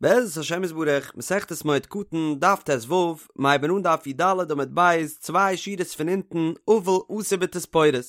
בעזרת השם יתברך, מסכת מועד קטן, דף ט"ו, מ'הייבן אן דף י"ד עמוד ב', צוויי שורות פון אונטן, אבל אסור בתספורת.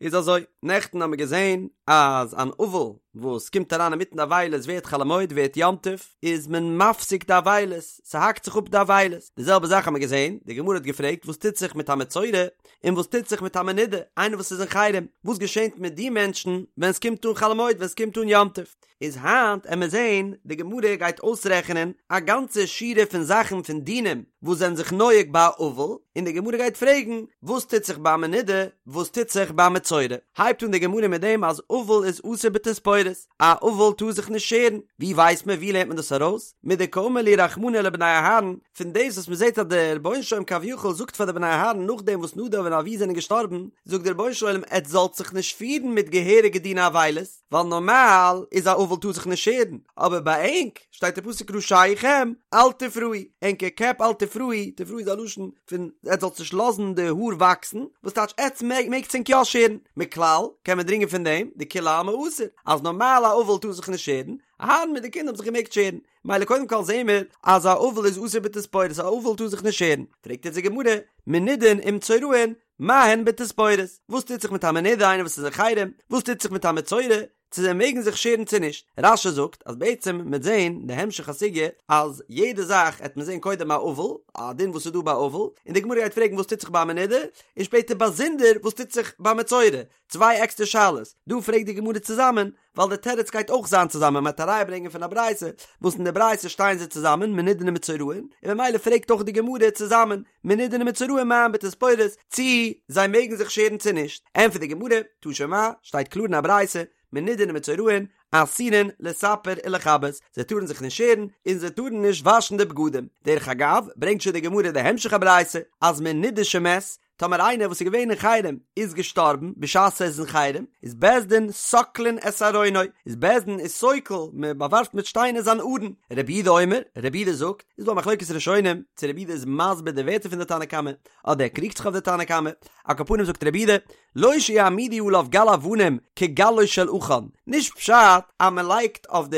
איז אזוי, נעכטן האמיר געזען אז אן אבל וואס קומט אריין אינמיטן די אבילות ווערט חול המועד ווערט יום טוב, איז מען מפסיק די אבילות, ס'האקט זיך אפ די אבילות. די זעלבע זאך האמיר געזען, די גמרא האט געפרעגט וואס טוט זיך מיט א מצורע, און וואס טוט זיך מיט א מנודה, איינער וואס איז אין חרם, וואס געשענט מיט די מענטשן ווען ס'קומט אן חול המועד, ווען ס'קומט אן יום טוב? איז היינט עמיר זעהן די גמרא גייט אויסרעכענען א גאנצע שורה פון זאכן פון דינים וואס זענען זיך נוהג ביי א אבל, און די גמרא גייט פרעגן וואס טוט זיך ביי א מנודה, וואס טוט זיך ביי א מצורע. הייבט אן די גמרא מיט דעם אז אבל איז אסור בתספורת, א אבל טאר זיך נישט שערן, ווי ווייסט מען ווי לערנט מען דאס ארויס? מדקאמר להו רחמנא לבני אהרן, פון דאס וואס מען זעט אז דער רבונו של עולם כביכול זאגט פאר די בני אהרן נאכדעם וואס נדב און אביהוא זענען געשטארבן, זאגט דער רבונו של עולם עטס זאלט זיך נישט פירן מיט געהעריגע דיני אבילות, ווייל נארמאל איז א אבל טאר זיך נישט שערן, אבער ביי ענק שטייט אין פסוק ראשיכם אל תפרעו, ענקער קעפ אל תפרעו, תפרעו איז א לשון פון עטס זאלטס נישט לאזן די האר וואקסן, וואס טייטש עטס מעגטס ענק יא שערן, מכלל קען מען דרינגען פון דעם דכולי עלמא אסור, אז נארמאל א אבל טאר זיך נישט שערן, אהרן מיט די קינדער האבן זיך געמעגט שערן, מילא קודם כל זעהן מיר אז א אבל איז אסור בתספורת, א אבל טאר זיך נישט שערן, פרעגט יעצט די גמרא, מנודין ומצורעין, מה הן בתספורת? וואס טוט זיך מיט א מנודה איינער וואס איז אין חרם? וואס טוט זיך מיט א מצורע? צו זיי מעגן זיך שערן צו נישט? רש"י זאגט אז בעצם מ'עט זעהן די המשך הסוגיא אז יעדע זאך עט מען זעהן קודם א אבל, א דין וואס איז דא ביי אבל, און די גמרא גייט פרעגן וואס טוט זיך ביי א מנודה, און שפעטער באזונדער וואס טוט זיך ביי מצורע, צוויי עקסטער שאלות, דא פרעגט די גמרא צוזאמען, ווייל די תירוץ גייט אויך זיין צוזאמען, מ'וועט א ראיה ברענגען פון א ברייתא, וואס אין די ברייתא שטייען זיי צוזאמען, מנודין ומצורעין, און ממילא פרעגט אויך די גמרא צוזאמען, מנודין ומצורעין מה הן בתספורת, צי זיי מעגן זיך שערן צו נישט, ענטפערט די גמרא, תא שמע, שטייט קלאר אין א ברייתא, מנודין ומצורעין, אסורין לספר ולכבס, זיי טארן זיך נישט שערן, און זיי טארן נישט וואשן די בגדים. דרך אגב, ברענגט שוין די גמרא די המשך הברייתא, אז מנודה שמת, טאמער איינער וואס איז געווען אין חרם איז געשטארבן בשעת ער איז אין חרם, איז בית דין סוקלין את ארונו, איז בית דין איז סוקל, מען באווארפט מיט שטיינער זיין ארון. רבי יהודה אומר, רבי יהודה זאגט, איז דא א מחלוקת ראשונים, צו רבי יהודה איז מסביר די ווערטער פון די תנא קמא, אדער ער קריגט זיך אויף די תנא קמא, על כל פנים זאגט רבי יהודה, לא שיעמידו עליו גל אבנים כגלו של עכן, נישט פשט אז מען לייגט אויף די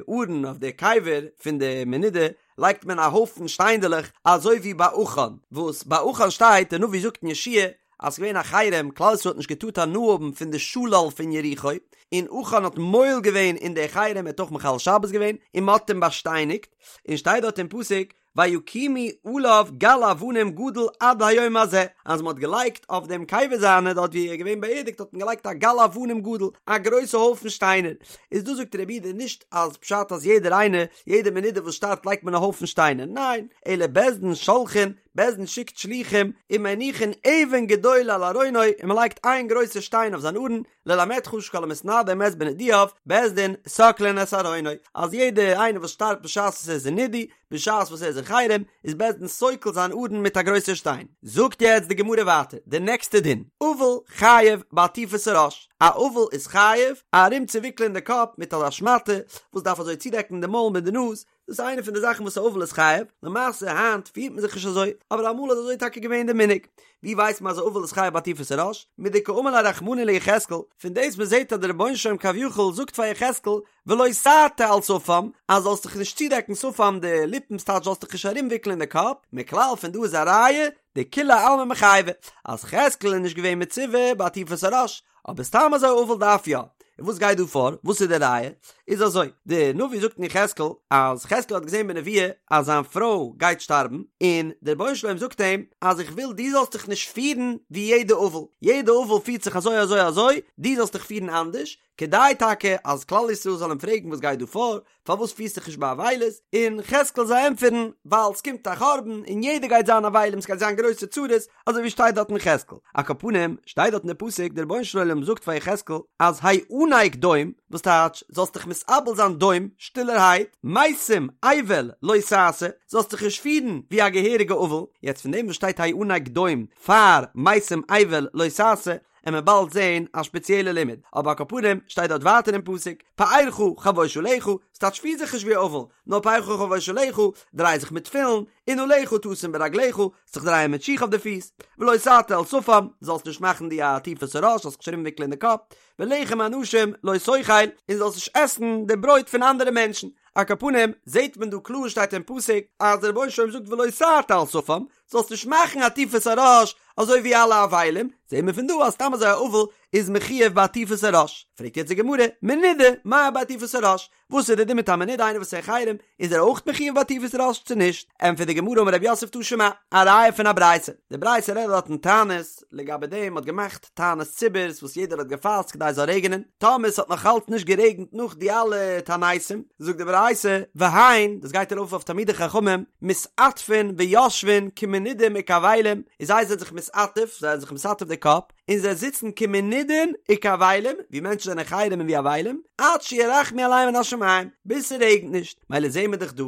ארון, אויף די קבר פון די מנודה, לייגט מען א הויפן שטיינדעלעך אזוי ווי ביי עכן, וואס ביי עכן שטייט, דער נביא זאגט אין יהושע אז ס'געווען א חרם, כלל ישראל האט נישט געטארט הנאה האבן פון די שלל פון יריחו, און עכן האט מועל געווען אין די חרם, ער האט אויך מחלל שבת געווען, און מ'האט אים באשטייניגט, און שטייט דארט אין פסוק, ויקימו עליו גל אבנים גדול עד היום הזה, אז מ'האט געלייגט אויף דעם קבר זיינע דארט ווי ער איז געווען באערדיגט האט מען געלייגט א גל אבנים גדול, א גרויסע הויפן שטיינער, איז דא זאגט רבי יהודה נישט אז פשט אז יעדער איינער יעדע מנודה וואס שטארבט לייגט מען א הויפן שטיינער, ניין, אלא בית דין שולחין, בית דין שיקט שלוחים, ומניחין אבן גדולה על ארונו, און מען לייגט איין גרויסע שטיין אויף זיין ארון, ללמדך שכל המתנדה ומת בנידויו, בית דין סוקלין את ארונו, אז יעדע איינער וואס שטארבט בשעת וואס ער איז אין נידוי, בשעת וואס ער איז אין חרם, איז בית דין סוקל זיין ארון מיט א גרויסע שטיין. זאגט יעצט די גמרא ווייטער, די נעקסטע דין, אבל חייב בעטיפת הראש, א אבל איז חייב ארום צו וויקלען די קאפ מיט אזא שמאטע וואס דארף אזוי צודעקן די מויל מיט די נאז, דאס איז איינע פון די זאכן וואס א אבל איז חייב, למעשה היינט פירט מען זיך נישט אזוי, אבער אמאל איז אזוי טאקע געווען די מנהג. ווי ווייסט מען אז א אבל איז חייב בעטיפת הראש? מדקאמר ליה רחמנא ליחזקאל, פון דאס מען זעט אז דער רבונו של עולם כביכול זאגט פאר יחזקאל, ולא תעטה על שפם, אז זאלסט דיך נישט צודעקן שפם די ליפן ס'טייטש זאלסט דיך נישט ארומוויקלען די קאפ, מכלל פון דא איז א ראיה, דכולי עלמא מיחייבי, אז יחזקאל איז נישט געווען מצווה בעטיפת הראש, אבער סתם אזוי אבל דארף יא. און וואס גייט דא פאר? וואס איז די ראיה? איז אזוי, די נביא זאגט אין יחזקאל אז יחזקאל האט געזען בנביאה אז זיין פרוי גייט שטארבן, און דער רבונו של עולם זאגט אים אז איך וויל דו זאלסט דיך נישט פירן ווי יעדע אבל, יעדע אבל פירט זיך אזוי אזוי אזוי, דו זאלסט דיך פירן אנדערש, כדי טאקע אז כלל ישראל זאל אים פרעגן וואס גייט דא פאר, פארוואס פירסט דיך נישט ביי אבילות, און יחזקאל זאל ענטפערן, ווייל ס'קומט א חורבן און יעדער גייט זיין אבלים, ס'גייט זיין גרויסע צרות, אזוי ווי שטייט דארט אין יחזקאל. על כל פנים, שטייט דארט אין די פסוק, דער רבונו של עולם זאגט פאר יחזקאל, אז האנק דום, וואס טייטש, זאלסט דיך מתאבל זיין דום, שטילערהייט, מתים אבל לא תעשה, זאלסט דיך נישט פירן ווי א געהעריגע אבל, יעצט פון דעם וואס שטייט האנק דום פאר מתים אבל לא תעשה, עמיר באלד זעהן א שפעציעלע לימוד, אבער על כל פנים שטייט דארט ווייטער אין פסוק, פארך חבוש עליך, ס'טייטש פיר זיך נישט ווי אבל, נאר פארך חבוש עליך, דריי זיך מיט תפילין, ונעליך תשים ברגליך, זיך דרייען מיט שיך אויף די פיס, ולא תעטה על שפם, זאלסט נישט מאכן די עטיפת הראש, זאלסט זיך נישט ארומוויקלען די קאפ, ולחם אנשים לא תאכל, און זאלסט נישט עסן די ברויט פון אנדערע מענטשן. על כל פנים, זעט מען דא קלאר שטייט אין פסוק אז דער רבונו של עולם זאגט ולא תעטה על שפם, זאלסט נישט מאכן עטיפת הראש אזוי ווי אלע אבלים, זעט מען פון דא אז סתם אזוי א אבל איז מחויב בעטיפת הראש. פרעגט יעצט די גמרא, מנודה מהו בעטיפת הראש? וואס איז די דין מיט א מנודה איינער וואס איז אין חרם, איז ער אויך מחויב בעטיפת ראש צו נישט? ענטפערט די גמרא אמר רב יוסף תא שמע, א ראיה פון א ברייתא, די ברייתא רעדט דארט אין תענית, לגבי דעם מ'האט געמאכט תענית ציבור'ס וואס יעדער האט געפאסט כדי עס זאל רעגענען, טאמער ס'האט נאך אלץ נישט גערעגנט נאך די אלע תעניתים, זאגט די ברייתא, והן, דאס גייט ארויף אויף תלמידי חכמים, מתעטפין ויושבין כמנודים וכאבלים, און זיי זענען זיך מתעטף, זיי זענען זיך מתעטף די קאפ, און זיי זיצן כמנודין וכאבלים, ווי מענטשן זענען חרם און ווי אבלים, עד שירחמו עליהם מן השמים, ביז ס'רעגנט נישט, מילא זעהן מיר דאך דא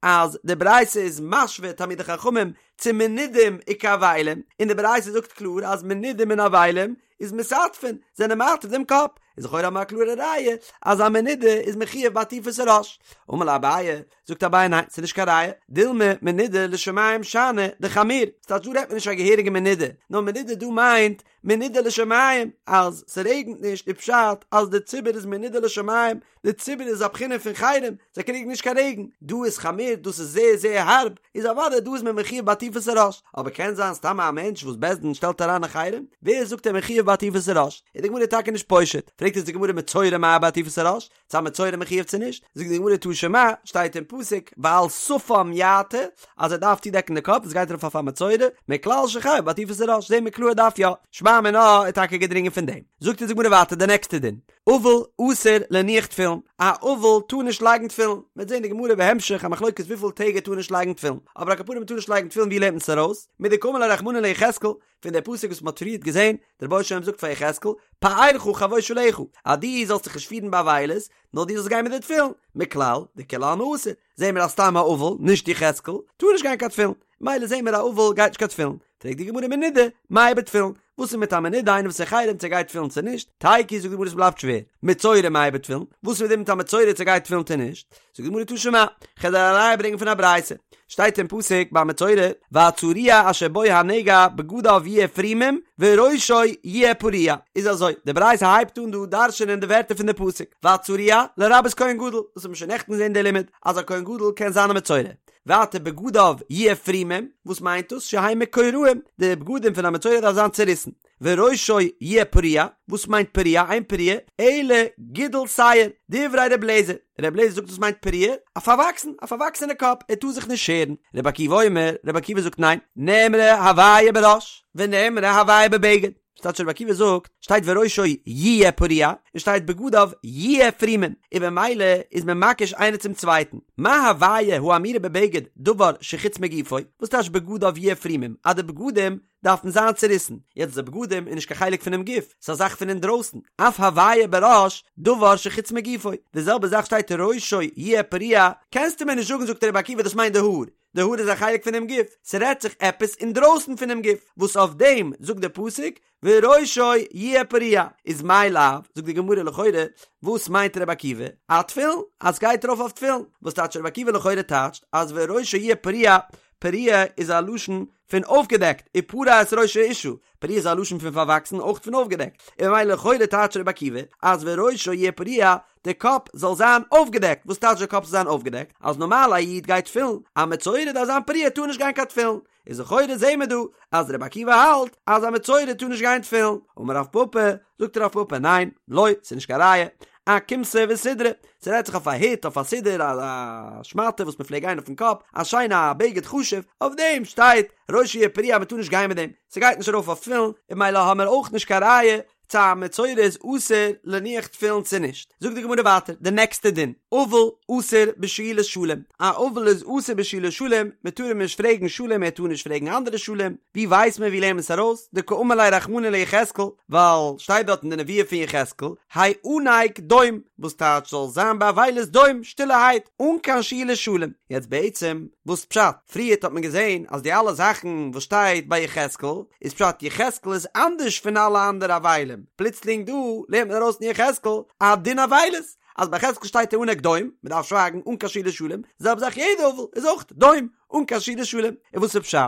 אז די ברייתא איז משווה תלמידי חכמים צו מנודים וכאבלים, און די ברייתא זאגט קלאר אז מנודים און אבלים איז מתעטפין, זענען מעטף דעם קאפ, איז לכאורה האבן מיר א קלארע ראיה אז א מנודה איז מחויב בעטיפת הראש. אמר ליה אביי, זאגט אביי ניין ס'איז נישט קיין ראיה, דילמא מנודה לשמים שאני דחמיר, ס'טייטש דא רעדט מען נישט א געהעריגע מנודה, נאר מנודה דא מיינט מנודה לשמים, אז ס'רעגנט נישט איז פשט אז די ציבור איז מנודה לשמים, די ציבור איז א בחינה פון חרם, זיי קריגן נישט קיין רעגן, דא איז חמיר דאס איז זייער זייער הארב, איז אוודאי דא איז מען מחויב בעטיפת הראש, אבער קען זיין סתם א מענטש וואס בית דין שטעלט אריין אין חרם, ווער זאגט ער מחויב בעטיפת הראש, איז די גמרא טאקע נישט פושט, פרעגט אונז די גמרא מצורע מהו בעטיפת הראש, צו א מצורע מחויב צו נישט, זאגט די גמרא תא שמע, שטייט אין פסוק ועל שפם יעטה, אז ער דארף צודעקן די קאפ, דאס גייט ארויף אויף א מצורע, מכלל שחייב בעטיפת הראש, זעהן מיר קלאר ער דארף יא, שמע מינה איז טאקע געדרינגען פון דעם. זאגט אונז די גמרא ווייטער די נעקסטע דין, אבל אסור להניח תפילין, א אבל טאר נישט לייגן תפילין, מ'וועט זעהן די גמרא בהמשך א מחלוקת וויפיל טעג ער טאר נישט לייגן תפילין, אבער על כל פנים מ'טאר נישט לייגן תפילין ווי לערנט מען עס ארויס? מדקאמר ליה רחמנא ליחזקאל, פון דער פסוק וואס מען האט פריערט געזען, דער רבונו של עולם זאגט פאר יחזקאל, פארך חבוש עליך, אז דו זאלסט זיך נישט פירן באבילות, נאר דו זאלסט גיין מיט די תפילין, מכלל דכולי עלמא אסור, זעהן מיר אז סתם א אבל, נישט יחזקאל, טאר נישט גיין קיין תפילין, מילא זעהן מיר א אבל גייט נישט קיין תפילין, פרעגט די גמרא מנודה, מהו בתפילין, וואס איז מיט א מנודה איינער וואס איז חרם צו גייט תפילין צו נישט, תיקו זאגט די גמרא עס בלייבט שווער, מצורע מהו בתפילין, וואס איז מיט א מצורע צו גייט תפילין צו נישט, זאגט די גמרא תא שמע, כ'וועל דיר א ראיה ברענגען פון א ברייתא, שטייט אין פסוק ביי מצורע, והצרוע אשר בו הנגע בגדיו יהיו פרומים וראשו יהיה פרוע, איז אזוי, די ברייתא הייבט אן דא דרש'ענען די ווערטער פון די פסוק, והצרוע לרבות כהן גדול, דאס האט מען שוין נעכטן געזען די לימוד, אז א כהן גדול קען זיין א מצורע. ווייטער בגדיו יהיו פרומים, וואס מיינט דאס? שיהיו מקורעים, די בגדים פון א מצורע דארף זיין צוריסן. וראשו יהיה פרוע, וואס מיינט פרוע? אין פרוע, אלא גידול שער, דברי ר' אליעזר, ר' אליעזר זאגט וואס מיינט פרוע? א פארוואקסן, א פארוואקסענע קאפ, ער טאר זיך נישט שערן. רבי עקיבא אומר, רבי עקיבא זאגט ניין, נאמרה הוויה בראש, ונאמרה הוויה בבגד. ס'טייטש רבי עקיבא זאגט, שטייט וראשו יהיה פרוע, און שטייט בגדיו יהיה פרומים, און במילא איז מען מקיש איינער צום צווייטן. מה הוויה האמורה בבגד דבר שחוץ מגופו, וואס טייטש בגדיו יהיה פרומים, אז די בגדים דארפן זיין צוריסן, יעצט די בגדים איז נישט קיין חלק פונעם גוף, ס'איז א זאך פון אינדרויסן, אף הוויה בראש דבר שחוץ מגופו, די זעלבע זאך שטייט ראשו יהיה פרוע, קענסטו מיר נישט זאגן זאגט רבי עקיבא דאס מיינט די האר, די האר איז א חלק פונעם גוף, ס'רעדט זיך עפעס אינדרויסן פונעם גוף, וואס אויף דעם זאגט דער פסוק וראשו יהיה פרוע, איז מאי לאו, זאגט די גמרא לכאורה, וואס מיינט רבי עקיבא? אתפילין, אז ס'גייט ארויף אויף תפילין, וואס טייטש רבי עקיבא לכאורה טייטשט אז וראשו יהיה פרוע, פרוע איז א לשון פון אויפגעדעקט, ופרע את ראש האשה, פרוע איז א לשון פון פארוואקסן אויך פון אויפגעדעקט, און ממילא לכאורה טייטשט רבי עקיבא אז וראשו יהיה פרוע, די קאפ זאל זיין אויפגעדעקט, וואס טייטש די קאפ זאל זיין אויפגעדעקט? אז נארמאל א איד גייט תפילין, א מצורע דארף זיין פרוע טאר נישט גיין קיין תפילין, איז לכאורה זעהן מיר דא אז רבי עקיבא האלט אז א מצורע טאר נישט גיין תפילין, אמר רב פפא, זאגט רב פפא ניין, לא, ס'איז נישט קיין ראיה, אכומתא וסודרא, ס'רעדט זיך אויף א הוט, אויף א סודר, א שמאטע וואס מ'פלעגט גיין אויפן קאפ, א שיינע א בגד חשוב, אויף דעם שטייט ראשו יהיה פרוע אז מ'טאר נישט גיין מיט דעם, ס'גייט נישט ארויף אויף תפילין, און ממילא האמער אויך נישט קיין ראיה צו א מצורע איז אסור להניח תפילין צו נישט. זאגט די גמרא ווייטער די נעקסטע דין, אבל אסור בשאילת שלום, א אבל איז אסור בשאילת שלום, מען טאר אים נישט פרעגן שלום ער טאר נישט פרעגן אנדערע שלום, ווי ווייסט מען ווי לערנט מען עס ארויס, דקאמר ליה רחמנא ליחזקאל, ווייל שטייט דארט אין די נבואה פון יחזקאל, האנק דום, וואס טייטש זאל זיין באבילות דום, שטילערהייט, אן קיין שאילת שלום. יעצט בעצם וואס פשט? פריערט האט מען געזען אז די אלע זאכן וואס שטייט ביי יחזקאל איז פשט יחזקאל איז אנדערש פון אלע אנדערע אבלים, פלוצלינג דא לערנט מען ארויס אין יחזקאל א דין אבילות, אז ביי יחזקאל שטייט האנק דום, מען דארף שווייגן אן קיין שאילת שלום, זעלבע זאך יעדע אבל איז אויך דום אן קיין שאילת שלום, און וואס איז פשט?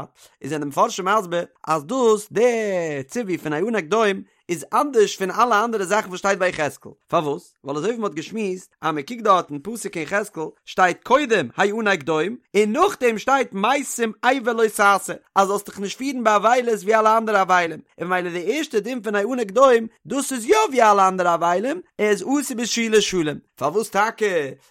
איז זענען די מפרשים מסביר אז דאס די ציווי פון האנק דום. איז אנדערש פון אלע אנדערע זאכן וואס שטייט ביי יחזקאל, פארוואס? ווייל אזוי ווי מ'האט געשמועסט אז מ'קוקט דארט אין פסוק אין יחזקאל שטייט קודם האנק דום און נאכדעם שטייט מתים אבל לא תעשה אז זאלסט דיך נישט פירן ביי אבילות ווי אלע אנדערע אבלים, און ממילא די ערשטע דין פון האנק דום דאס איז יא ווי אלע אנדערע אבלים, ער איז אסור בשאילת שלום. פארוואס טאקע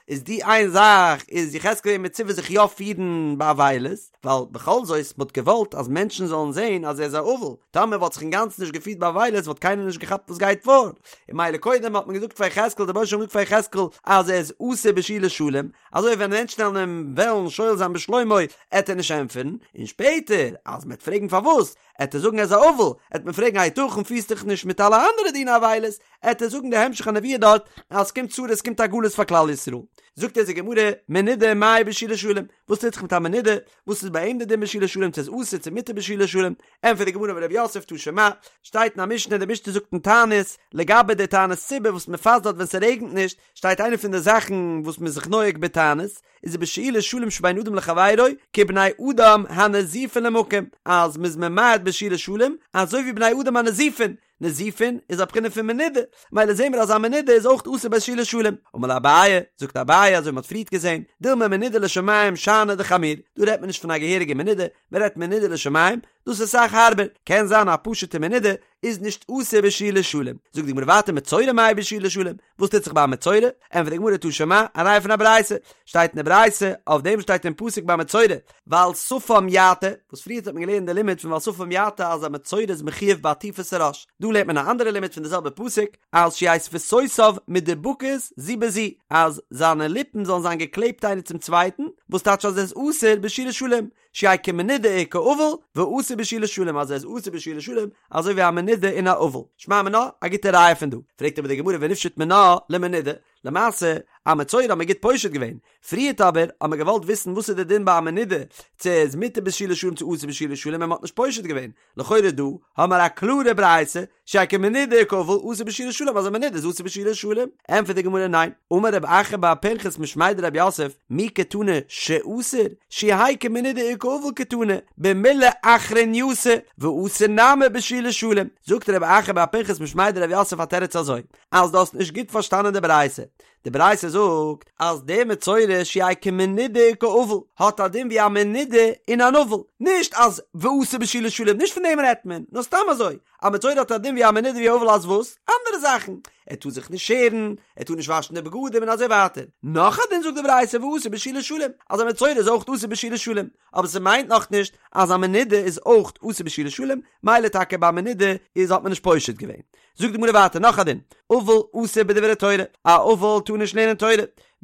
איז די איין זאך איז יחזקאל געווען מצווה זיך יא פירן ביי אבילות, ווייל בכל זאת מ'האט געוואלט אז מענטשן זאלן זען אז ער איז א אבל, טאמער וואלט זיך אינגאנצן נישט געפירט ביי אבילות וואלט קיינער נישט געכאפט וואס גייט פאר, און ממילא קודם האט מען געזאגט פאר יחזקאל דער רבונו של עולם האט געזאגט פאר יחזקאל אז ער איז אסור בשאילת שלום, אזוי ווען מענטשן וועלן אים וועלן שואל זיין בשלומו עט ער נישט ענטפערן, און שפעטער אז מ'עט פרעגן פארוואס עט ער זאגן ער איז א אבל, עט מען פרעגן היתכן פירסט דיך נישט מיט אלע אנדערע דיני אבילות, עט ער זאגן די המשך הנבואה דארט אז ס'קומט צרות ס'קומט א גלות פאר כלל ישראל. זאגט אונז די גמרא, מנודה מהו בשאילת שלום, וואס טוט זיך מיט א מנודה, וואס איז ביי אים די דין בשאילת שלום צו איז אסור צו מותר בשאילת שלום, ענטפערט די גמרא אמר רב יוסף תא שמע, שטייט אין א משנה די משנה זאגט אין תענית, לגבי די תענית ציבור וואס מ'פאסט דארט ווען ס'רעגנט נישט, שטייט איינע פון די זאכן וואס מ'איז זיך נוהג בתענית, איז ובשאילת שלום שבין אדם לחבירו כבני אדם הנזופין למקום, אז מ'איז ממעט בשאילת שלום אזוי ווי בני אדם הנזופין, נזופין איז א בחינה פון מנודה, מילא זעהן מיר אז א מנודה איז אויך אסור בשאילת שלום. אמר ליה אביי, זאגט אביי אזוי ווי מ'האט פריערט געזעהן, דילמא מנודה לשמים שאני דחמיר, דא רעדט מען נישט פון א געהעריגע מנודה, מ'רעדט מנודה לשמים, דאס איז אסאך הארבער, קען זיין א פשוטע מנודה איז נישט אסור בשאילת שלום. זאגט די גמרא ווייטער מצורע מהו בשאילת שלום, וואס טוט זיך ביי א מצורע? ענטפערט די גמרא תא שמע, א ראיה פון א ברייתא, שטייט אין די ברייתא, אויף דעם שטייט אין פסוק ביי מצורע, ועל שפם יעטה, וואס פריערט האט מען געלערנט די לימוד פון ועל שפם יעטה אז א מצורע איז מחויב בעטיפת הראש, דא לערנט מען א אנדערע לימוד פון די זעלבע פסוק, אז שיהא שפתותיו מדובקות זו בזו, אז זיינע ליפן זאלן זיין געקלעבט איינער צום צווייטן, וואס טייטש אז ער איז אסור בשאילת שלום, שיהא כמנודה וכאבל, ואסור בשאילת שלום אז ער איז אסור בשאילת שלום, אזוי ווי א מנודה און א אבל. שמע מינה, א גוטע ראיה פון דא. פרעגט אבער די גמרא ונפשוט מינה למנודה, למעשה, א מצורע האט מען גוט פושט געווען, פריערט אבער האט מען געוואלט וויסן וואס איז די דין ביי א מנודה, צו ער איז מותר בשאילת שלום צו אסור בשאילת שלום און מען האט נישט פושט געווען, לכאורה דא האמער א קלארע ברייתא, שיהא כמנודה וכאבל אסור בשאילת שלום אז א מנודה איז אסור בשאילת שלום, ענטפערט די גמרא ניין, אמר רב אחא בר פנחס משמיה דרב יוסף, מי קתני שאסור, שיהא כמנודה וכאבל קתני, במילי אחרנייתא, ואסור נמי בשאילת שלום, זאגט רב אחא בר פנחס משמיה דרב יוסף א תירוץ אזוי, אז דו האסט נישט גוט פארשטאנען די ברייתא, די ברייתא זאגט אז דער מצורע שיהא כמנודה וכאבל האט א דין ווי א מנודה און אן אבל, נישט אז ואסור בשאילת שלום, נישט פון דעם רעדט מען, נאר סתם אזוי, א מצורע האט א דין ווי א מנודה ווי א אבל אז וואס? אנדערע זאכן, ער טאר זיך נישט שערן, ער טאר נישט וואשן די בגדים און אזוי ווייטער. נאך א דין זאגט די ברייתא ואסור בשאילת שלום, אז א מצורע איז אויך אסור בשאילת שלום, אבער ס'מיינט נאכנישט אז א מנודה איז אויך אסור בשאילת שלום, מילא טאקע ביי מנודה איז האט מען נישט פושט געווען. זאגט די גמרא ווייטער נאך א דין, אבל אסור בדברי תורה, א אבל טאר נישט לערנען תורה,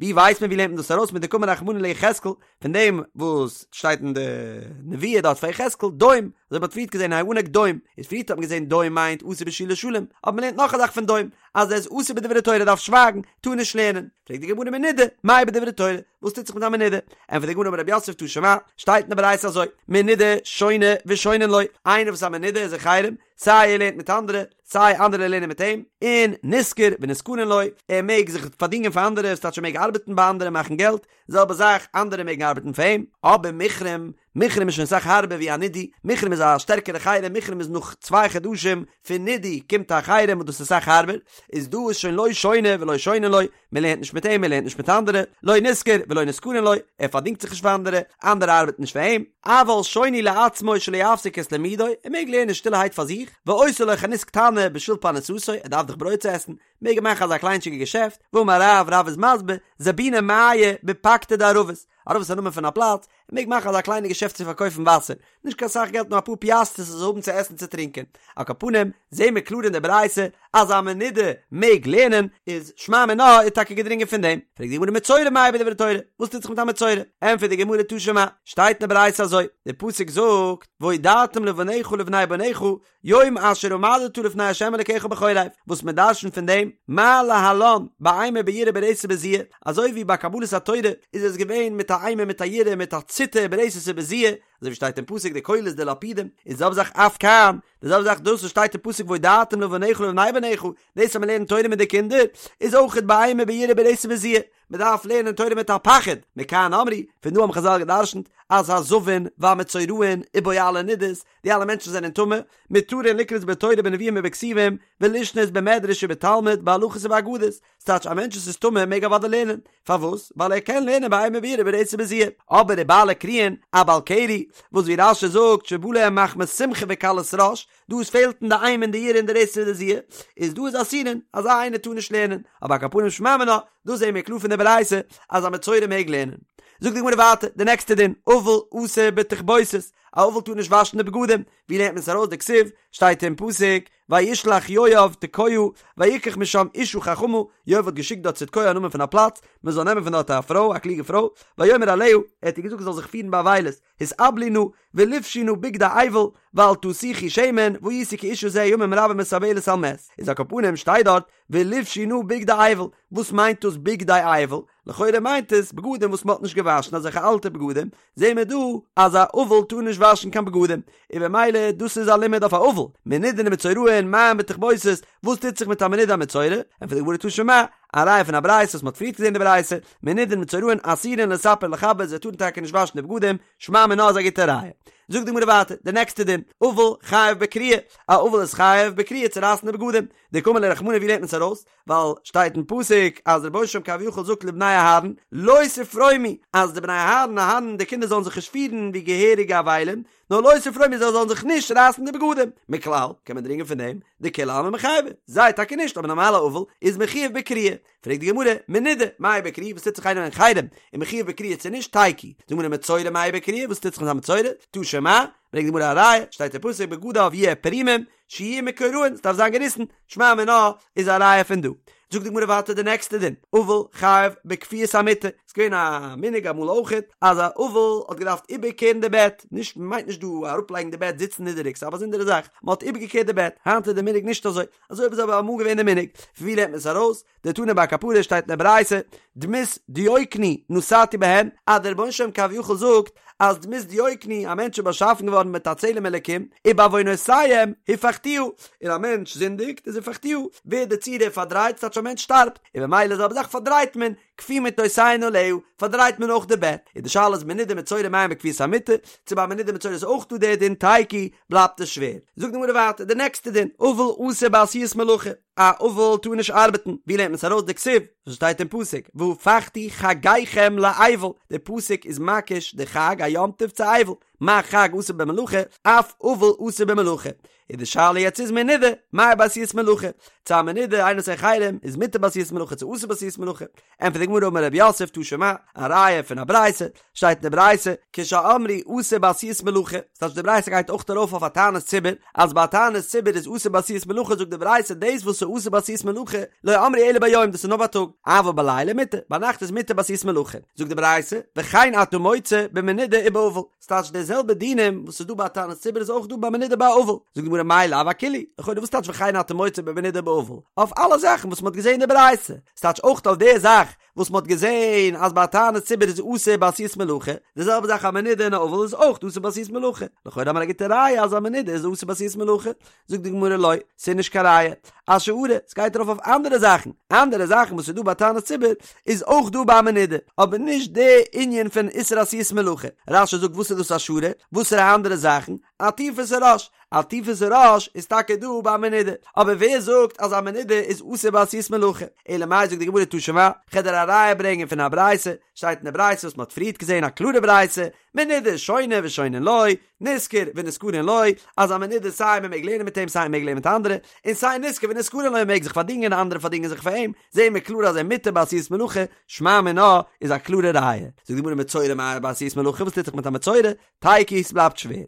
ווי ווייסט מען ווי לערנט מען דאס ארויס מדקאמר רחמנא ליחזקאל, פון דעם וואס שטייט אין די נבואה דארט פאר יחזקאל, דום, אזוי ווי מ'האט פריערט געזען האנק דום, איז פריערט האט מען געזען דום מיינט אסור בשאילת שלום, אבער מ'לערנט נאך א זאך פון דום, אז ער איז אסור בדברי תורה דארף שווייגן, טאר נישט לערנען, פרעגט די גמרא מנודה, מהו בדברי תורה, וואס טוט זיך מיט א מנודה? ענטפערט די גמרא אמר רב יוסף תא שמע, שטייט אין די ברייתא אזוי, מנודה שונה ושונין לו, איינער וואס איז א מנודה איז אין חרם, סיי ער לערנט מיט אנדערע, סיי אנדערע לערנען מיט אים, און נשכר ונשכרין לו, ער מעג זיך פארדינגען פאר אנדערע, ס'טייטש ער מעג ארבעטן ביי אנדערע מאכן געלט, זעלבע זאך, אנדערע מעגן ארבעטן פאר אים, אבער מוחרם, מוחרם איז שוין אסאך הארבער ווי א נידוי, מוחרם איז א שטערקערע חרם, מוחרם איז נאך צוויי חדשים פון נידוי קומט א חרם וואס דאס איז אסאך הארבער, איז דא איז שוין לא שונה ולא שונין לו, מען לערנט נישט מיט אים, מען לערנט נישט מיט אנדערע, לא נשכר ולא נשכרין לו, ער פארדינגט זיך נישט פאר אנדערע, אנדערע ארבעטן נישט פאר אים, אבל שונה לעצמו שלא יפסיק את לימודו, ער מעג לערנען שטילערהייט פאר זיך, ועושה לו חנות קטנה בשביל פרנסתו, ער דארף דאך ברויט צו עסן, מעג ער מאכן אזא קליינטשיגע געשעפט, ואמר רב, רב איז מסביר, זבוני מיא בפקתא דערבות, ערבות איז א נאמען פון א פלאץ, ער מעג מאכן אזא קליינע געשעפט צו פארקויפן וואסער, נישט קיין סאך געלט נאר אפאר פיאסטערס ער זאל האבן צו עסן צו טרינקען. על כל פנים, זעהן מיר קלאר אין די ברייתא אז א מנודה מעג לערנען, איז שמע מינה איז טאקע געדרינגען פון דעם. פרעגט די גמרא מצורע מהו בדברי תורה, וואס טוט זיך מיט א מצורע? ענטפערט די גמרא תא שמע, שטייט אין די ברייתא אזוי, די פסוק זאגט, והודעתם לבניך ולבני בניך יום אשר עמדת לפני ה' אלקיך בחורב, וואס מען דרשנ'ט פון דעם, מה להלן, באימה ביראה ברתת ובזיעה, אזוי ווי ביי קבלת התורה איז עס געווען מיט א אימה מיט א יראה מיט א ציטער ברתת ובזיעה, אזוי ווי שטייט אין פסוק די קולות די לפידים, איז די זעלבע זאך אף כאן, די זעלבע זאך דאס וואס שטייט אין פסוק והודעתם לבניך ולבני בניך, דאס אז מען לערנט תורה מיט די קינדער, איז אויכעט באימה ביראה ברתת ובזיע, מען דארף לערנען תורה מיט א פחד, מכאן אמרו, פון דא האבן חזל גע'דרשנ'ט, אז הזבין והמצורעין ובועלי נדות, די אלע מענטשן זענען טמא, מותרין לקרות בתורה בנביאים ובכתובים, ולשנות במדרש ובתלמוד, בהלכות ובאגדות, ס'טייטש א מענטש וואס איז טמא מעג אוודאי לערנען, פארוואס? ווייל ער קען לערנען באימה ביראה ברתת ובזיע, אבער ובעלי קריין, א בעל קרי, וואס ווי רש"י זאגט שבא להם מחמת שמחה וקלות ראש, דא עס פעלט אין די אימה און די יראה און די רתת און די זיע, איז דא איז אסורין, אזא איינער טאר נישט לערנען, אבער על כל פנים שמע מינה, דאס זעהן מיר קלאר פון די ברייתא, אז א מצורע מעג לערנען. זאגט די גמרא ווייטער, די נעקסטע דין, אבל אסור בתכבוסת, א אבל טאר נישט וואשן די בגדים, ווי לערנט מען עס ארויס דכתיב, שטייט אין פסוק, וישלח יואב תקועה ויקח משם אשה חכמה, יואב האט געשיקט דארט צו תקוע א נאמען פון א פלאץ, מען זאל נעמען פון דארט א פרוי, א קלוגע פרוי, ויאמר אליה, ער האט איר געזאגט זי זאל זיך פירן באבילות, התאבלי נא, ולבשי נא בגדי אבל, ואל תסכי שמן, והייתי כאשה זה ימים רבים מתאבלת על מת. איז על כל פנים שטייט דארט, ולבשי נא בגדי אבל, וואס מיינט דאס בגדי אבל? לכאורה מיינט עס בגדים וואס מען האט נישט געוואשן אזעלכע אלטע בגדים, זעהן מיר דא אז א אבל טאר נישט וואשן קיין בגדים, און במילא דאס איז א לימוד אויף א אבל, מנודין ומצורעין מה בתכבוסת, וואס טוט זיך מיט א מנודה א מצורע? ענטפערט די גמרא תא שמע, א ראיה פון א ברייתא וואס מען האט פריערט געזעהן די ברייתא, מנודין ומצורעין אסורין לספר ולכבס, זיי טארן טאקע נישט וואשן די בגדים, שמע מינה איז א גוטע ראיה. זאגט די גמרא ווייטער, די נעקסטע דין, אבל חייב בקריעה, א אבל איז חייב בקריעה צו רייסן די בגדים, דקאמר ליה רחמנא ווי לערנט מען עס ארויס? ווייל שטייט אין פסוק אז דער רבונו של עולם כביכול זאגט לבני אהרן לא תפרומו אז די בני אהרן אהרן די קינדער זאלן זיך נישט פירן ווי געהעריגע אבלים נאר לא תפרומו זיי זאלן זיך נישט רייסן די בגדים מכלל קען מען דרינגען פון דעם דכולי עלמא מיחייבי זיי טאקע נישט אבער נארמאלע אבל איז מחויב בקריעה פרעגט די גמרא מנודה מהו בקריעה וואס טוט זיך איינער אין חרם איז מחויב בקריעה צו נישט תיקו זאגט די גמרא מצורע מהו בקריעה וואס טוט זיך מיט א מצורע תא שמע ברענגט די גמרא א ראיה שטייט אין פסוק בגדיו יהיו פרומים שיהיו מקורעין, ס'דארף זיין געריסן, שמע מינה איז א ראיה פון דא. זאגט די גמרא ווייטער די נעקסטע דין, אבל חייב בכפיית המיטה, ס'איז געווען א מנהג אמאל אויכעט אז א אבל האט געדארפט איבערקערן די בעט, נישט מ'מיינט נישט דא אראפלייגן די בעט זיצן נידעריג ס'איז א באזונדערע זאך, מ'האט איבערגעקערט די בעט, היינט איז די מנהג נישט אזוי, אזוי איז אבער אמאל געווען די מנהג, פון ווי לערנט מען עס ארויס? דתנא בי כפרה שטייט אין די ברייתא, דמות דיוקני נתתי בהן, אז דער רבונו של עולם כביכול זאגט אז דמות דיוקני, א מענטש איז באשאפן געווארן מיט א צלם אלקים, ובעוונותיהם הפכתיה, און א מענטש זינדיגט איז הפכתיה, ווערט די צורה פארדרייט, ס'טייטש א מענטש שטארבט, און במילא זעלבע זאך פארדרייט מען, כפו מטותיהן עליה, פארדרייט מען אויך די בעט, און די שאלה איז מנודה מצורע מה בכפיית המיטה, צו ביי מנודה מצורע איז אויך דא דער דין תיקו, בלייבט עס שווער. זאגט די גמרא ווייטער די נעקסטע דין, אבל אסור בעשיית מלאכה. א אבל טאר נישט ארבעטן, ווי לערנט מען עס ארויס דכתיב, וואס שטייט אין פסוק, והפכתי חגיכם לאבל, די פסוק איז מקיש די חג א יום טוב צו אבל, מה חג אסור במלאכה, אף אבל אסור במלאכה, איז די שאלה יעצט איז מנודה, מהו בעשיית מלאכה, צו א מנודה איינער וואס איז אין חרם איז מותר בעשיית מלאכה צו אסור בעשיית מלאכה, ענטפערט די גמרא אמר רב יוסף תא שמע, א ראיה פון א ברייתא, שטייט אין די ברייתא, כשאמרו אסור בעשיית מלאכה, ס'טייטש די ברייתא גייט אויך ארויף אויף א תענית ציבור, אז ביי א תענית ציבור איז אסור בעשיית מלאכה זאגט די ברייתא דאס וואס איז אסור בעשיית מלאכה לא אמרו אלא ביום דאס איז נאר בייטאג, אבל בלילה מותר, ביינאכט איז מותר בעשיית מלאכה, זאגט די ברייתא, וכן אתה מוצא במנודה ובאבל, ס'טייטש די זעלבע דינים וואס איז דא ביי א תענית ציבור איז אויך דא ביי מנודה ביי אבל, זאגט די גמרא מאי לאו אכולהו, לכאורה וואס טייטש וכן אתה מוצא במנודה ובאבל, אויף אלע זאכן וואס מ'האט געזען אין די ברייתא, ס'טייטש אויך אויף די זאך וואס מ'האט געזען אז ביי א תענית ציבור איז אסור בעשיית מלאכה, די זעלבע זאך א מנודה און א אבל איז אויך אסור בעשיית מלאכה, לכאורה האט מען א גוטע ראיה אז א מנודה איז אסור בעשיית מלאכה, זאגט די גמרא לא, ס'איז נישט קיין ראיה, אשארא, ס'גייט ארויף אויף אנדערע זאכן, אנדערע זאכן וואס איז דא ביי תענית ציבור איז אויך דא ביי א מנודה, אבער נישט די ענין פון איסור עשיית מלאכה, רש"י זאגט וואס איז דאס אשארא, וואסערע אנדערע זאכן, עטיפת הראש, עטיפת הראש איז טאקע דא ביי א מנודה, אבער ווער זאגט אז א מנודה איז אסור בעשיית מלאכה? אלא מאי זאגט די גמרא תא שמע, כ'על דיר א ראיה ברענגען פון א ברייתא, שטייט אין די ברייתא וואס מ'האט פריערט געזען א קלארע ברייתא, מנודה שונה ושונין לו, נשכר ונשכרין לו, אז א מנודה סיי מ'מעג לערנען מיט אים סיי מ'מעג לערנען מיט אנדערע, און סיי נשכר ונשכרין לו מ'מעג זיך פארדינגען און אנדערע פארדינגען זיך פאר אים, זעהן מיר קלאר אז ער מותר בעשיית מלאכה, שמע מינה איז א קלארע ראיה. זאגט די גמרא מצורע מהו בעשיית מלאכה וואס טוט זיך מיט א מצורע? תיקו ס'בלייבט שווער.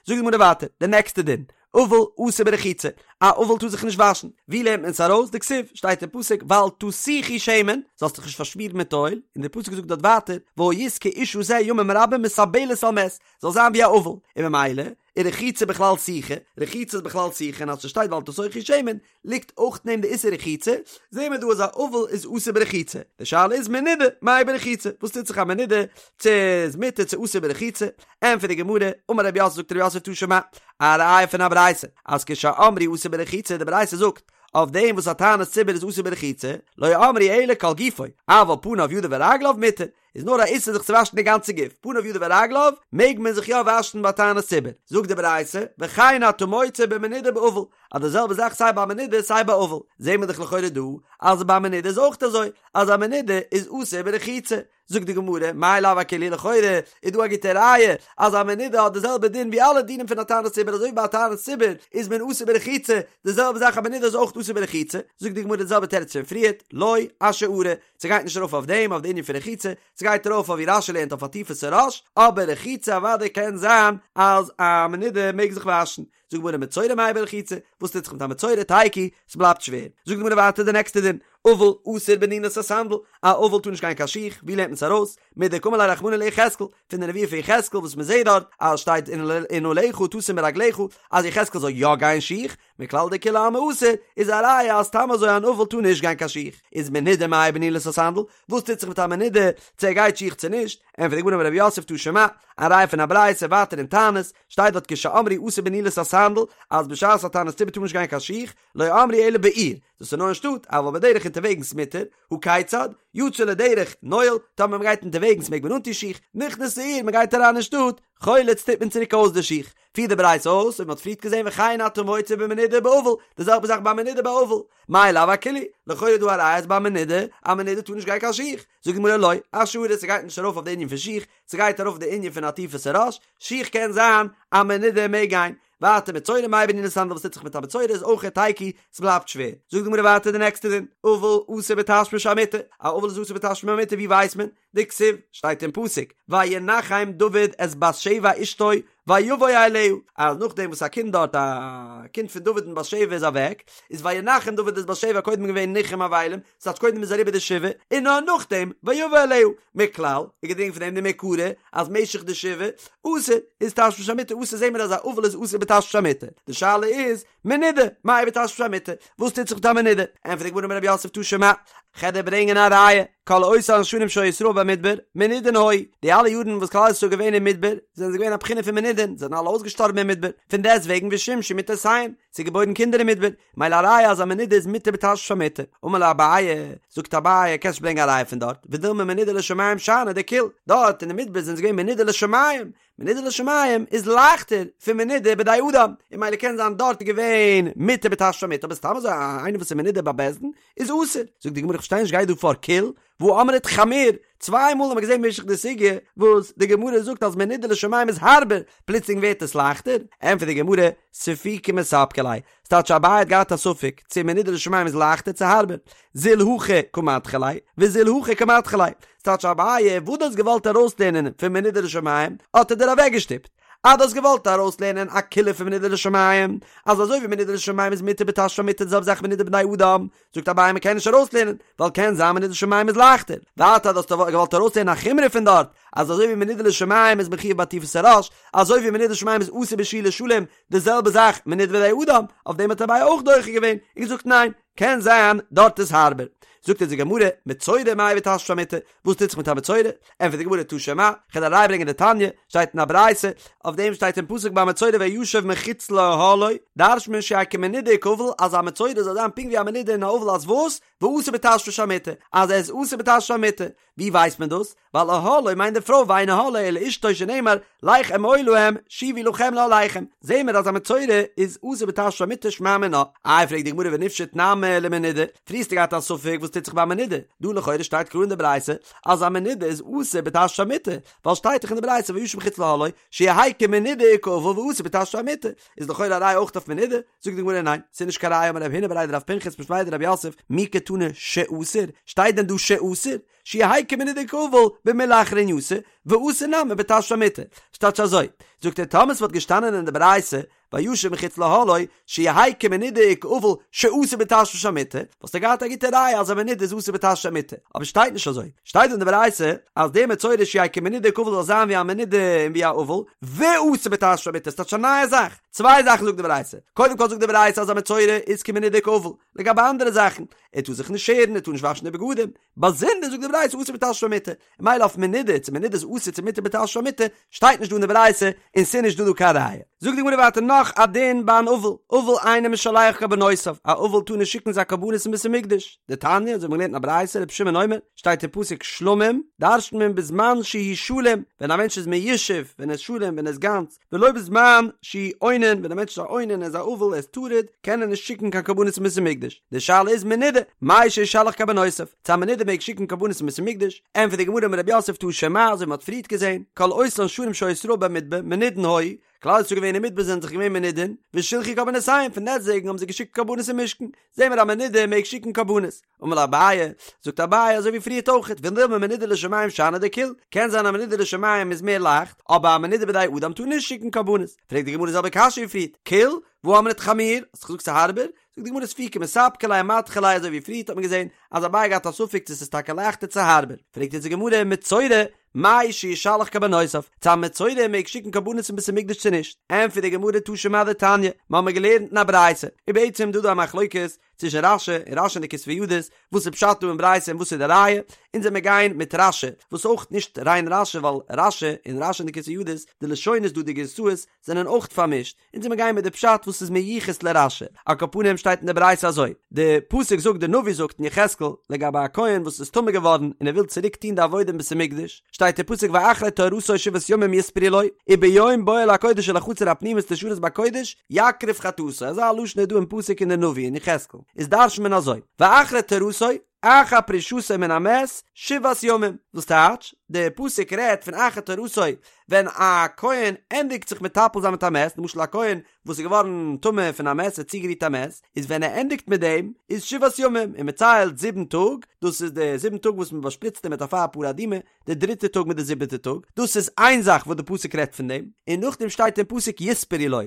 זאגט די גמרא ווייטער, די נעקסטע דין, אבל אסור ברחיצה, א אבל טאר זיך נישט וואשן, ווי לערנט מען עס ארויס? דכתיב, שטייט אין פסוק ואל תסוכי שמן, זאלסט דיך נישט פארשמירן מיט אויל, און דער פסוק זאגט דארט ווייטער והיית כאשה זה ימים רבים מתאבלת על מת, זאל זיין ווי א אבל, און ממילא איז רחיצה בכלל סיכה, רחיצה איז בכלל סיכה און אז ס'שטייט ואל תסוכי שמן ליגט אויך אין דעם די איסור רחיצה, זעהן מיר דא אז א אבל איז אסור ברחיצה, די שאלה איז מנודה מאי ברחיצה, וואס טוט זיך א מנודה, צו איז מותר צו אסור ברחיצה, ענטפערט די גמרא, אמר רב יוסף זאגט רב יוסף תא שמע, א ראיה פון א ברייתא, אז כשאמרו אסור ברחיצה, די ברייתא זאגט, אויף דעם וואס א תענית ציבור איז אסור ברחיצה, לא אמרו אלא כל גופו, אבל פניו ידיו ורגליו מותר, איז נאר א איסור זיך צו וואשן די גאנצע גוף, פניו ידיו ורגליו, מעג מען זיך יא וואשן ביי תענית ציבור. זאגט די ברייתא, וכן אתה מוצא במנודה ובאבל, אז די זעלבע זאך סיי ביי מנודה סיי ביי אבל, זעהן מיר דאך לכאורה דא אז ביי מנודה איז אויך אזוי, אז א מנודה איז אסור ברחיצה. זאגט די גמרא, מאי לאו אכולהו לכאורה איז דא א גוטע ראיה אז א מנודה האט די זעלבע דין ווי אלע דינים פון א תענית ציבור אזוי ווי ביי א תענית ציבור איז מען אסור ברחיצה, די זעלבע זאך א מנודה איז אויך אסור ברחיצה, זאגט די גמרא די זעלבע תירוץ פון פריערט, לא אשארא, ס'גייט נישט ארויף אויף דעם אויף די ענין פון רחיצה, ס'גייט ארויף אויף ווי רש"י לערנט אויף עטיפת הראש, אבער רחיצה אוודאי קען זיין אז א מנודה מעג זיך וואשן. זאגט די גמרא מצורע מאי ברחיצה, וואס טוט זיך מיט א מצורע תיקו, ס'בלייבט שווער. זאגט די גמרא ווייטער די נעקסטע דין, אבל אסור בנעילת הסנדל, א אבל טאר נישט גיין קיין שיך, ווי לערנט מען עס ארויס? מדקאמר ליה רחמנא ליחזקאל, פון די נבואה פון יחזקאל וואס מ'זעט דארט אז שטייט ונעליך תשים ברגליך אז יחזקאל זאל יא גיין שיך, מכלל דכולי עלמא אסור, איז א ראיה אז סתם אזוי אן אבל טאר נישט גיין קיין שיך. איז מנודה מאי בנעילת הסנדל, וואס טוט זיך מיט א מנודה, צו ער גייט שיך צו נישט, ענטפערט די גמרא אמר רב יוסף תא שמע, א ראיה פון א ברייתא ווייטער אין תענית, שטייט דארט כשאמרו אסור בנעילת הסנדל, אז בשעת א תענית ציבור טאר מען נישט גיין קיין שיך, לא אמרו אלא בעיר, דאס איז נאר אין שטאט, אבל בדרך אונטערוועגנס מותר, הא כיצד, יצא לדרך, נועל, טאמער מען גייט אונטערוועגנס מעג מען אנטון שיך, נכנס לעיר, מען גייט אריין אין שטאט, חולץ טוט מען צוריק אויס די שיך. פירט די ברייתא אויס, און מען האט פריערט געזען וכן אתה מוצא במנודה ובאבל, די זעלבע זאך ביי מנודה ביי אבל, מאי לאו אכולהו, לכאורה איז דא א ראיה אז ביי מנודה, א מנודה טאר נישט גיין קיין שיך, זאגט די גמרא לא, אשארא, ס'גייט נישט ארויף אויף די ענין פון שיך, ס'גייט ארויף די ענין פון עטיפת הראש, שיך קען זיין א מנודה מעג גיין, ווייטער מצורע מאי בנעילת הסנדל וואס טוט זיך מיט א מצורע איז אויך תיקו, ס'בלייבט שווער, זאגט די גמרא ווייטער די נעקסטע דין, אבל אסור בתשמיש המיטה, א אבל איז אסור בתשמיש המיטה ווי ווייסט מען? דכתיב, שטייט אין פסוק, וינחם דוד את בת שבע אשתו ויבא אליה, אז נאכדעם וואס א קינד דארט, א קינד פון דוד און בת שבע איז אוועק, איז וינחם דוד את בת שבע קודם געווען ניחום אבלים, ס'טייטש קודם איז אריבער די שבעה, און נאר נאכדעם ויבא אליה, מכלל, איז געדרינגען פון דעם דמעיקרא, אז משך די שבעה, אסור, איז תשמיש המיטה אסור זעהן מיר אז א אבל איז אסור בתשמיש המיטה, די שאלה איז, מנודה, מאי בתשמיש המיטה, וואס טוט זיך מיט א מנודה? ענטפערט די גמרא אמר רב יוסף תא שמע, כ'על דיר ברענגען א ראיה, כל אותן שנים שהיו ישראל במדבר, מנודין היו, די אלע יארן וואס כלל ישראל איז געווען אין מדבר, זענען זיי געווען א בחינה פון מנודין, זיי זענען אלע אויסגעשטארבן אין מדבר, פון דעסט וועגן ושמשו מטותיהן, ס'איז געבוירן קינדער אין מדבר, מילא א ראיה אז א מנודה איז מותר בתשמיש המיטה, אמר ליה אביי, זאגט אביי, קענסט נישט ברענגען א ראיה פון דארט, ודילמא מנודה לשמים שאני דקיל, דארט אין די מדבר זענען זיי געווען מנודה לשמים, מנודה לשמים איז לייכטער פון מנודה בידי אדם, און מילא קען זיין דארט איז געווען מותר בתשמיש המיטה, אבער סתם אזוי איינער וואס איז מנודה ביי בית דין איז אסור. זאגט די גמרא איך פארשטיי נישט גייט דא פאר קיל והא אמרת חמיר, צוויי מאל האט מען געזען במשך די סוגיא וואס די גמרא זאגט אז מנודה לשמים איז הארבער, פלוצלינג ווערט עס לייכטער? ענטפערט די גמרא, ספוקי מספקא ליה, ס'טייטש אביי האט געהאט א ספק צו מנודה לשמים איז לייכטער צו הארבער, זיל הכא קא מדחי ליה, וזיל הכא קא מדחי ליה, ס'טייטש אביי וואס דו האסט געוואלט ארויסלערנען פון מנודה לשמים האט ער דיר אוועקגעשטופט, אז דו האסט געוואלט ארויסלערנען א קולא פון מנודה לשמים, אז אזוי ווי מנודה לשמים איז מותר בתשמיש המיטה די זעלבע זאך מנודה בידי אדם, זאגט אביי מ'קען נישט ארויסלערנען, ווייל קען זיין מנודה לשמים איז לייכטער, ווייטער אז דו האסט געוואלט ארויסלערנען א חומרא פון דארט, אז אזוי ווי מנודה לשמים איז מחויב בעטיפת הראש, אזוי ווי מנודה לשמים איז אסור בשאילת שלום, די זעלבע זאך מנודה בידי אדם, אויף דעם האט אביי אויך דוחה געווען און געזאגט ניין, קען זיין דארט איז הארבער. זאגט אונז די גמרא, מצורע מאי בתשמיש המיטה, וואס טוט זיך מיט א מצורע? ענטפערט די גמרא תא שמע, כ'וועל א ראיה ברענגען דתניא, שטייט אין א ברייתא, אויף דעם שטייט אין פסוק ביי מצורע וישב מחוץ לאהלו, דרש'נט מען שיהא כמנודה וכאבל, אז א מצורע זאל זיין פונקט ווי א מנודה און א אבל אז וואס? ואסור בתשמיש המיטה, אז ער איז אסור בתשמיש המיטה. ווי ווייסט מען דאס? ווייל אהלו מיינט די פרוי ואין אהלו אלא אשתו שנאמר לך אמור להם שובו לכם לאהליכם, זעהן מיר אז א מצורע איז אסור בתשמיש המיטה שמע מינה. איי פרעגט די גמרא ונפשוט נמי למנודה, פריער האסטו געהאט א ספק וואס טוט זיך ביי א מנודה, דא לכאורה שטייט קלאר אין די ברייתא אז א מנודה איז אסור בתשמיש המיטה, ווייל שטייט דאך אין די ברייתא וישב מחוץ לאהלו שיהא כמנודה וכאבל ואסור בתשמיש המיטה, איז לכאורה א ראיה אויך אויף מנודה, זאגט די גמרא ניין, ס'איז נישט קיין ראיה אמר רב הונא בריה דרב פנחס משמיה דרב יוסף, מי קתני שאסור, שטייט דען דא שאסור? שיהא כמנודה וכאבל במילי אחרנייתא, ואסור נמי בתשמיש המיטה. ס'טייטש אזוי, זאגט ער טאמער ס'וואלט געשטאנען אין די ברייתא. וישב מחוץ לאהלו, שיהא כמנודה וכאבל שאסור בתשמיש המיטה, וואלסטו געהאט א גוטע ראיה אז א מנודה איז אסור בתשמיש המיטה, אבער שטייט נישט אזוי, שטייט דא אין די ברייתא אז דער מצורע שיהא כמנודה וכאבל זאל זיין ווי א מנודה און ווי א אבל, ואסור בתשמיש המיטה, ס'טייטש א נייע זאך, צוויי זאכן זאגט די ברייתא, קודם כל זאגט די ברייתא אז א מצורע איז כמנודה וכאבל, לגבי אנדערע זאכן, ער טאר זיך נישט שערן, ער טאר נישט וואשן די בגדים, באזונדער זאגט די ברייתא אסור בתשמיש המיטה, ממילא אויף מנודה, צו מנודה איז אסור צו מותר בתשמיש המיטה, שטייט נישט דא אין די ברייתא, און ס'איז נישט דא דא קיין ראיה. זאגט די גמרא ווייטער נאך א דין ביי אן אבל, אבל אינו משלח קרבנותיו, א אבל טאר נישט שיקן זיין קרבנות אין בית המקדש, דתניא, אזוי האט מען געלערנט אין א ברייתא, רבי שמעון אומר, שטייט אין פסוק שלמים, דרש'נט מען בזמן שהוא שלם, ווען א מענטש איז מיושב, ווען ער איז שלם, ווען ער איז גאנץ, ולא בזמן שהוא אונן, ווען א מענטש איז א אונן, ער איז א אבל, ער איז טרוד, קען ער נישט שיקן קיין קרבנות אין בית המקדש. די שאלה איז מנודה, מהו שישלח קרבנותיו, צו א מנודה מעג שיקן קרבנות אין בית המקדש, ענטפערט די גמרא אמר רב יוסף תא שמע, אזוי ווי מען האט פריערט געזען, כל אותן שנים שהיו ישראל במדבר, מנודין היו, כלל ישראל געווען אין מדבר זענען זיך געווען מנודין, ושלחו קרבנותיהם, פון דעסטוועגן האבן זיי געשיקט קרבנות אין משכן, זעהן מיר א מנודה מעג שיקן קרבנות. אמר ליה אביי, זאגט אביי אזוי ווי פריערט אויכעט, ודילמא מנודה לשמים שאני דקיל, קען זיין א מנודה לשמים איז מער לייכט, אבער א מנודה בידי אדם טאר נישט שיקן קרבנות. פרעגט די גמרא די זעלבע קשיא ווי פריערט, קיל, והא אמרת חמיר, האסט געזאגט ס'איז הארבער? זאגט די גמרא ספוקי מספקא ליה אמדחי ליה אזוי ווי פריערט האט מען געזען אז אביי האט געהאט א ספק צו ס'איז טאקע לייכטער צו הארבער, פרעגט יעצט די גמרא מצורע, מהו שישלח קרבנותיו, צו א מצורע מעג שיקן קרבנות אין בית המקדש צו נישט? ענטפערט די גמרא תא שמע דתניא, מ'האמיר געלערנט אין א ברייתא, און בעצם דא דא א מחלוקת צווישן רש"י און רש"י אין די כתבי ידות, וואס איז פשט דא אין ברייתא און וואס איז די ראיה, אונז וועמיר גיין מיט רש"י, וואס אויך נישט ריין רש"י ווייל רש"י און רש"י אין די כתבי ידות, די לשונות דא די גירסאות זענען אויך פארמישט, אונז וועמיר גיין מיט די פשט וואס איז מיוחס לרש"י, על כל פנים שטייט אין די ברייתא אזוי, די פסוק זאגט די נביא זאגט אין יחזקאל לגבי א כהן וואס איז טמא געווארן און ער וויל צוריק טון די עבודה אין בית המקדש, שטייט אין פסוק ואחרי טהרתו שבעת ימים יספרו לו, וביום בואו אל הקודש אל החצר הפנימית לשרת בקודש יקריב חטאתו, אזא לשון איז דא אין פסוק אין די נביא אין יחזקאל, איז דרש'נט מען אזוי, ואחרי טהרתו, אחר פרישתו מן המת שבעת ימים, וואס טייטש, די פסוק רעדט פון אחר טהרתו ווען א כהן ענדיגט זיך מטפל זיין מיט א מת, למשל א כהן וואס איז געווארן טמא פון א מת, ער האט צוגערירט א מת, איז ווען ער ענדיגט מיט דעם איז שבעת ימים, און מען ציילט זיבן טאג, דאס איז די זיבן טאג וואס מען באשפריצט אים מיט אפר פרה אדומה, די דריטע טאג מיט די זיבעטע טאג, דאס איז איין זאך וואס די פסוק רעדט פון דעם, און נאכדעם שטייט אין פסוק יספרו לו,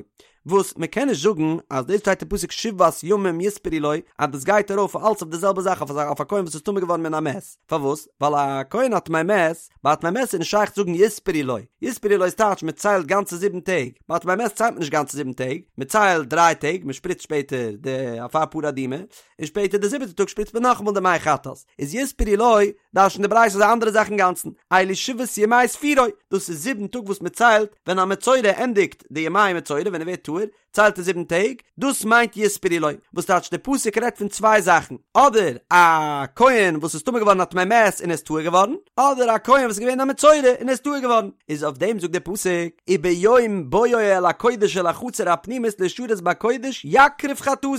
וואס מען קען נישט זאגן אז דאס שטייט אין פסוק שבעת ימים יספרו לו אז דאס גייט ארויף אלץ אויף די זעלבע זאך אויף א כהן וואס איז טמא געווארן מן המת, פארוואס? ווייל א כהן א טמא מת, ביי א טמא מת איז נישט שייך צו זאגן יספרו לו, יספרו לו איז טייטש מען ציילט גאנצע זיבן טעג, ביי א טמא מת ציילט מען נישט גאנצע זיבן טעג, מען ציילט דריי טעג, מען שפריצט שפעטער די אפר פרה אדומה, און שפעטער די זיבעטע טאג שפריצט מען נאכאמאל די מי חטאת, איז יספרו לו דרש'נט די ברייתא אזא אנדערע זאך אינגאנצן, אלו שבעת ימי ספירו, דאס איז זיבן טאג וואס מען ציילט ווען א מצורע ענדיגט די ימי מצורע ווען ער ווערט טהור, ציילט ער זיבן טעג, דאס מיינט יספרו לו, וואס טייטש די פסוק רעדט פון צוויי זאכן, אדער א כהן וואס איז טמא געווארן א טמא מת און איז טהור געווארן, אדער א כהן וואס איז געווען א מצורע און איז טהור געווארן, איז אויף דעם זאגט די פסוק, וביום בואו אל הקודש אל החצר הפנימית לשרת בקודש יקריב חטאתו,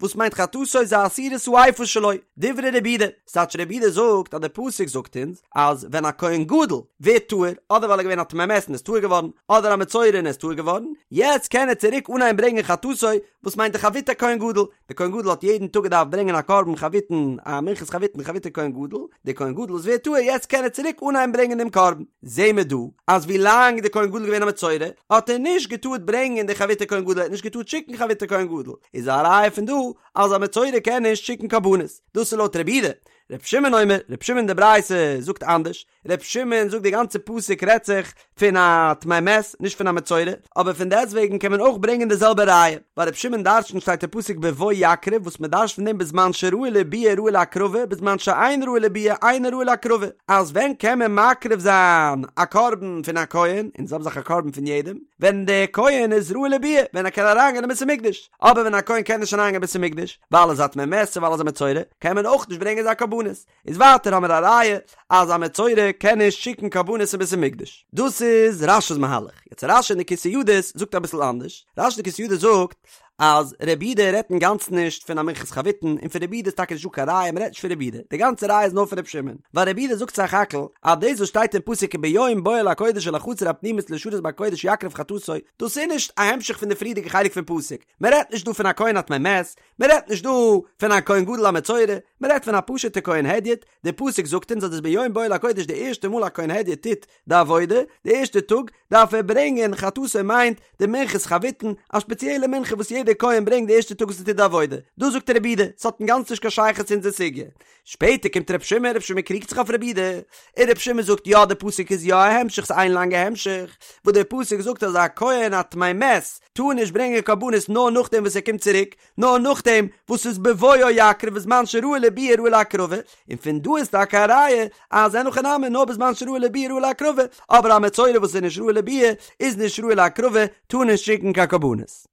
וואס מיינט חטאתו זה עשירית האיפה שלו, דברי רבי יהודה, ס'טייטש רבי יהודה זאגט אז די פסוק זאגט אונז אז ווען א כהן גדול ווערט טהור, אדער ווייל ער איז געווען א טמא מת און איז טהור געווארן, אדער א מצורע און איז טהור געווארן, יעצט קען ער צוריק אנהייבן ברענגען חטאתו, וואס מיינט די חביתי כהן גדול, די כהן גדול האט יעדן טאג געדארפט ברענגען א קרבן חביתין, א מנחת חביתין חביתי כהן גדול, די כהן גדול וואס ווערט טהור יעצט קען ער צוריק אנהייבן ברענגען דעם קרבן. זעהן מיר דא אז ווי לאנג די כהן גדול איז געווען א מצורע האט ער נישט געטארט ברענגען די חביתי כהן גדול, ער האט נישט געטארט שיקן חביתי כהן גדול, איז א ראיה פון דא אז א מצורע קען נישט שיקן קרבנות, דאס איז לויט רבי יהודה. רבי שמעון אומר, רבי שמעון די ברייתא זאגט אנדערש, רבי שמעון זאגט די גאנצע פסוק רעדט זיך פון א טמא מת נישט פון א מצורע, אבער פון דעסטוועגן קען מען אויך ברענגען די זעלבע ראיה, ווייל רבי שמעון דרשנט שטייט אין פסוק בבוא יקריב וואס מען דרשנט פון דעם בזמן שראוי לביאה ראוי להקרבה בזמן שאין ראוי לביאה אינו ראוי להקרבה, אז ווען קען מען מקריב זיין א קרבן פון א כהן, און די זעלבע זאך א קרבן פון יעדעם, ווען דער כהן איז ראוי לביאה, ווען ער קען אריינגיין אין בית המקדש, אבער ווען א כהן קען נישט אריינגיין אין בית המקדש, ווייל ער איז א טמא מת צו ווייל ער איז א מצורע, קען מען אויך נישט ברענגען זיין קרבנות. איז ווייטער האמיר א ראיה אז א מצורע קען נישט שיקן קרבנות אין בית המקדש. דאס איז רש"י'ס מהלך. יעצט רש"י אין די כתבי ידות זאגט אביסל אנדערש. רש"י אין די כתבי ידות זאגט. אז רבי יהודה רעדט אינגאנצן נישט פון א מנחת חביתין און פון רבי יהודה איז טאקע נישט דא קיין ראיה מ'רעדט נישט פון רבי יהודה די גאנצע ראיה איז נאר פון רבי שמעון ווייל רבי יהודה זאגט סך הכל אז דאס וואס שטייט אין פסוק וביום בואו אל הקודש אל החצר הפנימית לשרת בקודש יקריב חטאתו דאס איז נישט א המשך פון די פריערדיגע חלק פון פסוק מ'רעדט נישט דא פון א כהן א טמא מת מ'רעדט נישט דא פון א כהן גדול א מצורע מ'רעדט פון א פשוט'ע כהן הדיוט די פסוק זאגט אונז אז דאס ביום בואו אל הקודש די ערשטע מאל א כהן הדיוט טוט די עבודה, די ערשטע טאג דארף ער ברענגען חטאתו מיינט די מנחת חביתין, א שפעציעלע מנחה וואס יעדער כהן ברענגט די ערשטע טאג וואס ער טוט די עבודה, דאס זאגט רבי יהודה, ס'האט אינגאנצן נישט קיין שייכות צו אונזער סוגיא. שפעטער קומט רבי שמעון, רבי שמעון קריגט זיך אויף רבי יהודה, און רבי שמעון זאגט יא די פסוק איז יא א המשך ס'איז איין לאנגע המשך, וואס דער פסוק זאגט אז א כהן א טמא מת טאר נישט ברענגען קרבנות נאר נאכדעם וואס ער קומט צוריק, נאר נאכדעם וואס ס'איז בבואו יקריב בזמן שראוי לביאה ראוי להקרבה, און פון דא איז טאקע א ראיה אז אין הכי נמי נאר בזמן שראוי לביאה ראוי להקרבה, אבער א מצורע וואס איז נישט ראוי לביאה איז נישט ראוי להקרבה, טאר נישט שיקן קיין קרבנות.